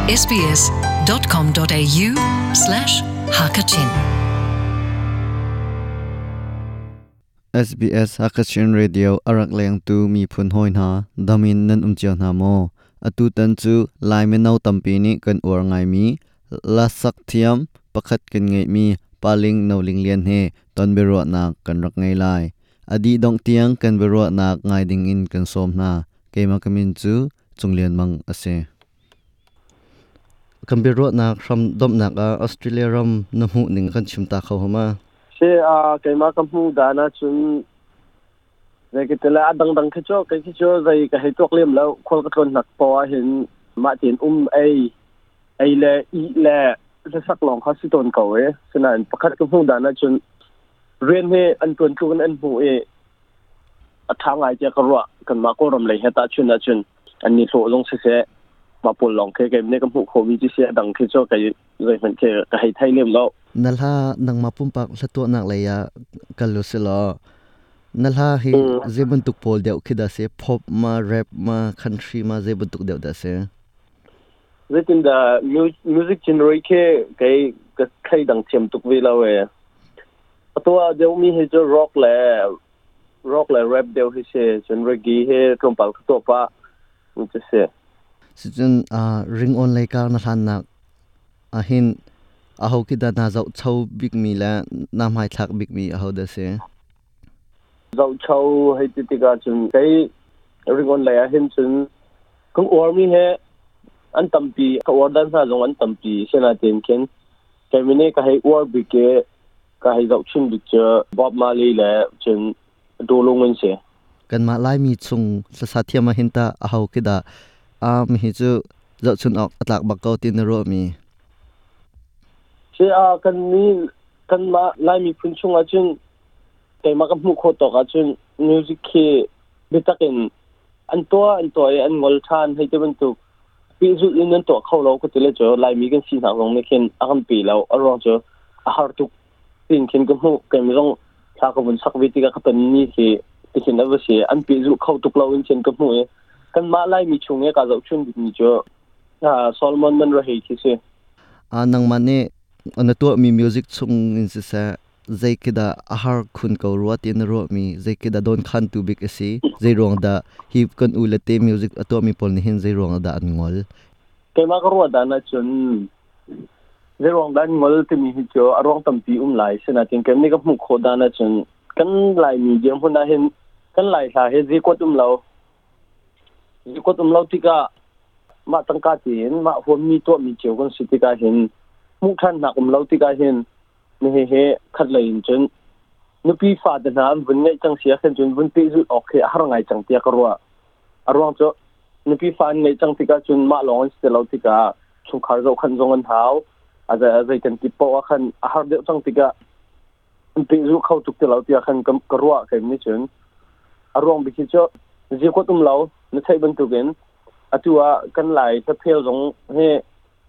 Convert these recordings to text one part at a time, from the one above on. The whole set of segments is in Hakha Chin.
sbs.com.au/hakachin SBS Hakachin Radio a rak lengtu miphun hawi hna damin nan um cio hna maw? Atu tan cu Lai mino tampi nih kan uar ngaimi lasak thiam pakhat kan ngeihmi Paling Noling Lian he ton biaruahnak kan rak ngei lai. A dih dongh tiang kan biaruahnak ngai ding in kan sawm hna. Keimah ka min cu Cung Lian Mang a si. Kan biaruahnak hram domhnak ah Australia ram na hmuh ning kan chim ta kho hama? Si a keimah ka hmuh dan ahcun zei ka ti le a dangdang khi cu kei khi cu zei ka hei tuak lem lo. Khual ka tlawn hnak poah ahhin mah tein um ei ei le ih le hlasak lawng kha si tawn ko e. Sinain pakhat ka hmuh dan ahcun rian hi an ṭuan tluk in an hmuh i a ṭha ngai tiah ka ruah. Kanmah Kawlram lei he tahchun ahcun an ni hlawh zong siseh mah pawl lawng khi kei nih ka hmuh khawhmi cu si, a dang khi cu kei zeihmanh khi ka hei thei lem lo. Na hla nangmah pumpak hlatuahnak lei ah kal u si law na hla hi zei bantuk pawl deuh khi dah si? Pop ma, rap ma, country ma, zei bantuk deuh dah si? Zeitindah music genre khi kei ka thleidang thiam tuk ve lo ee. A tuah deuhmi hi cu rock le rap deuh hi si. Cun reggae hi tlawmpal ka tuah pah cu si. Sicun ringawn lei kar na hlannak ahhin aho khi dah naa zohcho bikmi le naa hmaithlak bikmi aho dah si? Zohcho hei ti tikah cun kei ringawn lei ahhin cun kan uarmi he an tampi, ka uar dan hna zong an tampi. Sinain khin kei nih ka hei uar bik i ka hei zohchun bik cu Bob Marley le cun Dolung an si. Kanmah Laimi chung hlasa thiam ahhin tah aho khi dah mi hi cu zohchun awk a tlak bak ko ti na ruahmi? Si a kan mi kanmah Lai miphun chung ahcun keimah ka hmuh khawh tawk ahcun music khi biatak in an tuah i an ngol ṭhan hei ti bantuk pehzulh in an tuah kho lo ka ti le cu Laimi kan si hna zong nih khin a kan pe lo. A ruang cu a har tuk tin khin ka hmuh. Keimah zong thla ka vun sak ve tikah ka ton ni khi tikhin a va si, an pehzulh kho tuk lo in khin ka hmuh i kanmah Laimi chung i ka zohchun bikmi cu Solomon Manrahei khi si. Nangmah nih na tuahmi music chung in siseh, zei khi dah a har khun ko rua ti na ruahmi, zei khi dah dawnkhantu bik a si, zei ruang dah hi kan u le te music a tuahmi pawl nih hin zei ruang dah an ngol? Keimah ka ruah dan ahcun zei ruang dah an ngol timi hi cu a ruang tampi um lai. Sinain keimah nih ka hmuh khawh dan ahcun kan Laimi dirhmun ahhin kan Lai hla hi zikuat um lo. Zikuat um lo tikah mah tangka tein mah huammi tuahmi cio kan si tikah hin hmuh ṭhannak um lo tikah hin nihi hi khat lei in cun nupi fate hna an vun ngeih cang si ahkhin cun vun pehzulh awk khi a har ngai cang tiah ka ruah. A ruang cu nupi fa an ngeih cang tikah cun mah lawng an si ti lo tikah chungkhar zohkhanh zong an hau. A zei kan ti paoh ah khan a har deuh cang tikah an pehzulh kho tuk ti lo tiah khan ka ruah kei nih cun. A ruang bik hi cu zikuat um lo na theih bantukin atu ah kan Lai hlaphel zong hi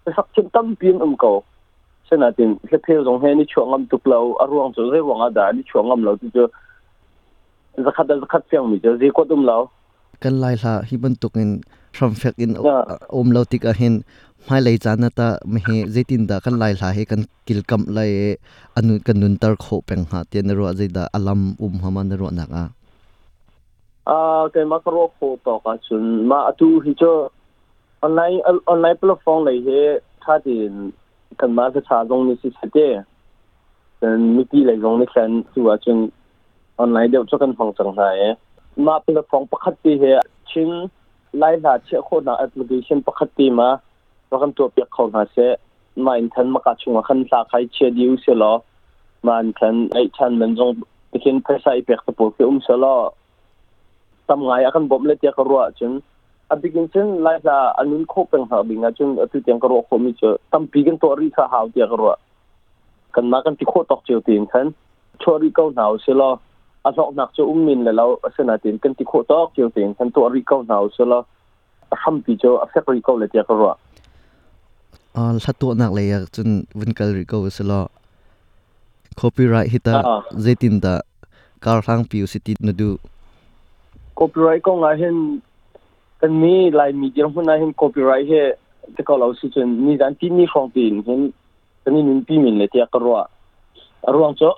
hlasak thiam tampi an um ko. Sinain hlaphel zong he ni chuah ngam tuk lo. A ruang cu zei ruang ah dah ni chuah ngam lo ti cu zakhat le zakhat fiangmi cu zikuat um lo. Kan Lai hla hi bantukin hramfek in um lo tik ahhin hmailei caan ah tah mihi zeitindah kan Lai hla hi kan kilkamh lai i anu kan nunter khawh peng hnga tiah na ruah? Zeidah a lam um hama na ruahnak ah? Keimah ka ruah khawh tawk ahcun mah atu hi cu online platform lei hi ṭha tein kanmah hlacha zong nih siseh te cun mipi lei zong nih khan tu ahcun online deuh cu kan hmang cang hna i mah platform pakhat te hi Chin Lai hla chiah khawhnak application pakhat te ma rak kan tuahpiak kho hna seh. Mah in khan maka chungah khan hla khai chia dih u sih law mah in khan eih ṭhan man zong tikhin phaisa i pek te pawl khi um seh law tam ngai a kan bawmh le tiah ka ruah ahcun a bik in cun Lai hla a nun khawh peng hna ding ahcun atu tiang ka ruah khawhmi cu tampi kan tuah rih kha hau tiah ka ruah. Kanmah kan ti khawh tawk cio tein khan chuah rih ko hna usih law a hlawknak cu um men le lo, asinain kan ti khawh tawk cio tein khan tuah rih ko hna usih law a hrampi cu a fek rih ko le tiah ka ruah. Hla tuahnak lei ah cun vun kal rih ko usih law copyright hi tah zeitindah karhlangpi usih ti na duh? Copyright kong ah hin kan mi Laimi dirhmun ah hin copyright hi Ti ko lo si cun nizan timi hrawng tiin hin kan i nunpi men le tiah ka ruah. A ruang cu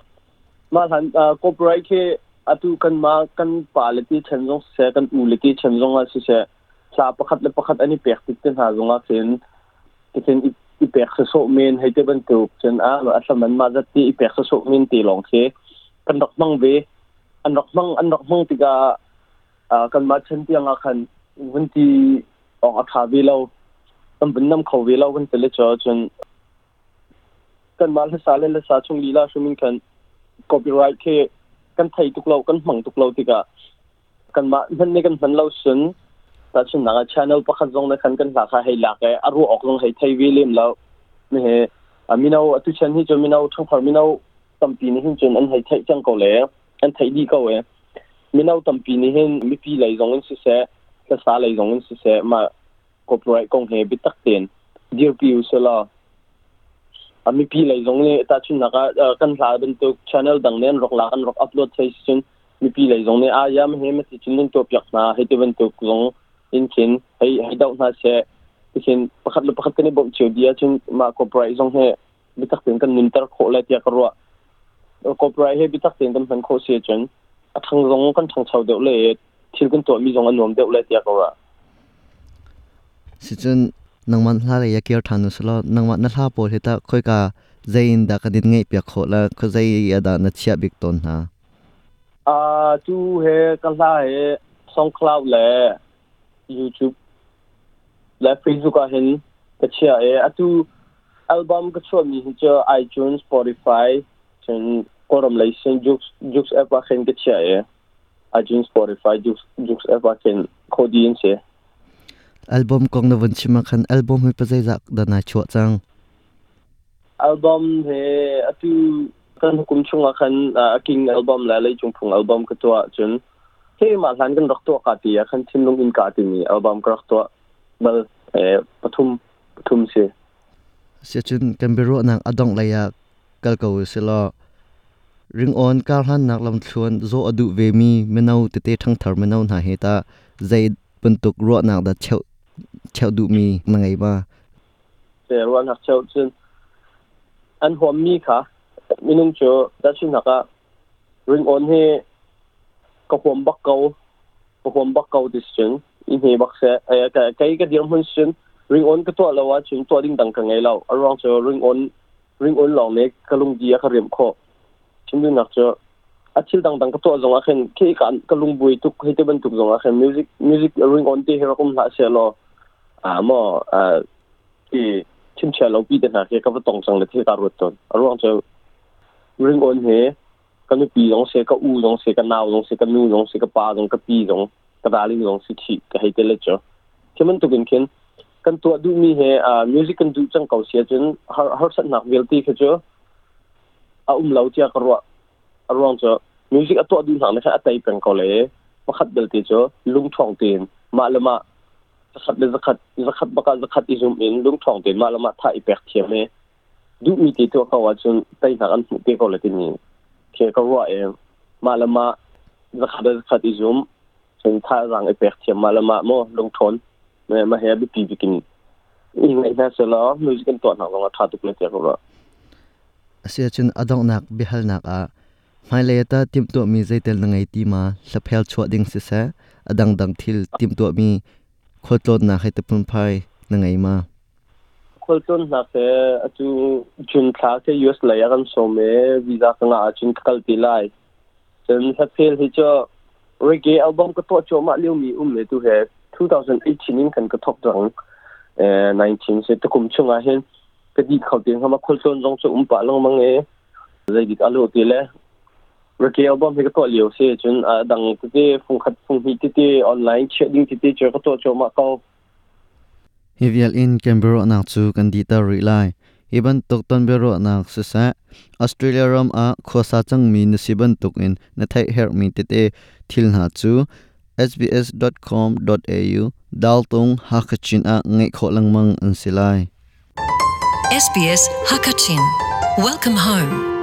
mah hlan copyright khi atu kan ma kan pa le ti chan zong siseh, kan u le ti chan zong ah siseh, hla pakhat le pakhat an i pek tik te hna zong ah khin tikhin i pek sasawh men hei te bantuk cun a a hlaman mah zat ti i pek sasawh men te lawng khi kan rak hmang ve. An rak hmang, an rak hmang tikah kanmah chan tiang ah khan vun ti awk a ṭha ve lo, kan vun nam kho ve lo kan ti le cu cun kanmah hlasa le hlasa chung lila hrim in khan copyright khi kan thei tuk lo, kan hmang tuk lo tikah kanmah hman nih kan hman lo sun tahchunhnak ah channel pakhat zong na khan kan hla kha hei lak i a ruah awk zong hei thei ve lem lo. He mino atu chan hi cu mino ṭhangthar mino tampi nih hin cun an hei theih cang ko le an theih dih ko e. Mino tampi nih hin mipi lei zong in siseh, hlasa lei zong in siseh, mah copyright kong he biatak tein dirpi u selaw a mipi lei zong nih tahchunhnak ah kan hla bantuk channel dang nih an rak lak, an rak upload thei si cun mipi lei zong nih a yam he mati cun nan tuah piak hna hei ti bantuk zong in khin hei hei doh hna seh tikhin pakhat le pakhat kan i bawmh cio dih ahcun mah copyright zong he biatak tein kan nunter khawh lai tiah ka ruah. Copyright he biatak tein kan hman khawh si ahcun a ṭhang zong kan ṭhangcho deuh le thil kan tuahmi zong a nuam deuh lai tiah ka ruah. Sicun nangmah hla lei ah kir ṭhan usih law nangmah na hla pawl hi tah khoika zei in dah kan in ngaihpiak khawh la khuazei ah dah na chiah bik tawn hna? Tu he ka hla he SoundCloud le YouTube le Facebook ah hin ka chiah i atu album ka chuahmi hi cu iTunes, Spotify, cun Kawlram lei sin Joox, Joox app ah khin ka chiah i iTunes, Spotify, Joox, Joox app ah khin khodi an si. Album kong na vun chim ah khan album hi pazeizah dah nai chuah cang? Album he atu kan kum chung ah khan King album le Leicung Phung album ka tuah cun he mah hlan kan rak tuah ka ti ah khan Thinlung in ka timi album ka rak tuah bal pathum pathum si. Siacun kan biaruahnak a dongh lei ah kal ko usih law ringawn karhlannak lamthluan zawh a duh vemi mino tete ṭhangthar mino hna he tah zei bantuk ruahnak dah cheuh cheuh duhmi na ngei ma? Ruahnak cheuh cun an huammi kha minung cu tahchunhnak ah ringawn hi ka huam bak ko, ka huam bak ko ti cun i hme bak seh. Kei ka dirhmun cun ringawn ka tuah lo ahcun tuah ding dang ka ngei lo. A ruang cu ringawn ringawn lawng nih ka lungdi a ka riamh khawh. Chim duhnak cu a thil dangdang ka tuah zong ah khin khi ka ka lungbuai tuk hei ti bantuk zong ah khin music music ringawn ti hi rak um hlah seh law a maw ti chimchia lo pi te hna khi ka va tong cang le thil ka ruat tawn. A ruang cu ringawn hi ka nupi zong se, ka u zong se, ka nau zong se, ka nu zong se, ka pa zong, ka pi zong, ka darling zong si khi ka hei te le cu. Khi bantuk in khin kan tuah duhmi he music kan duh cang ko si ahcun harsatnak vialte khi cu a um lo tiah ka ruah. A ruang cu music a tuah duh hna nih khan a tei peng ko le pakhat belte cu lungṭhawng tein mah le mah zakhat le zakhat zakhat bak ah zakhat i zum in lungṭhawng tein mah le mah tha i pek thiam i duhmi te tuah ko ahcun teinak an hmuh te ko le timi khi ka ruah i mah le mah zakhat le zakhat i zum cun thazaang i pek thiam mah le mah maw lungṭhawn mah he a biapi bik in i ngaih hna selaw music kan tuah hna zong ah ṭha tuk le tiah ka ruah. Asiahcun a donghnak biahalnak ah hmailei ah tah timhtuahmi zeitel na ngei ti ma hlaphel chuah ding siseh a dangdang thil timhtuahmi khualtlawnnak hei ti phunphai na ngei ma? Khualtlawnnak he atu June thla khi US lei ah kan sawm i visa ka ngah ahcun ka kal te lai. Cun hlaphel hi cu reggae album ka tuah cuahmah liomi um le tu he 2018 in khan ka thawk cang. 19 si tukum chung ah hin ka dih kho te hnga ma khualtlawn zong cu um pah lengmang i zeidik a lawh ti le reggae album hi ka tuah lio si cun a dang tete fungkhat funghnih tete online chiah ding tete cu ka tuah cuahmah ko. Hi vial in kan biaruahnak cu kan dihter rih lai. Hi bantuk ton biaruahnak siseh, Australia ram ah khuasa cangmi na si bantukin na theih herhmi tete thil hna cu sbs.com.au daltung Hakha-Chin ah ngeih khawh lengmang an si lai. SBS Hakachin. Welcome home.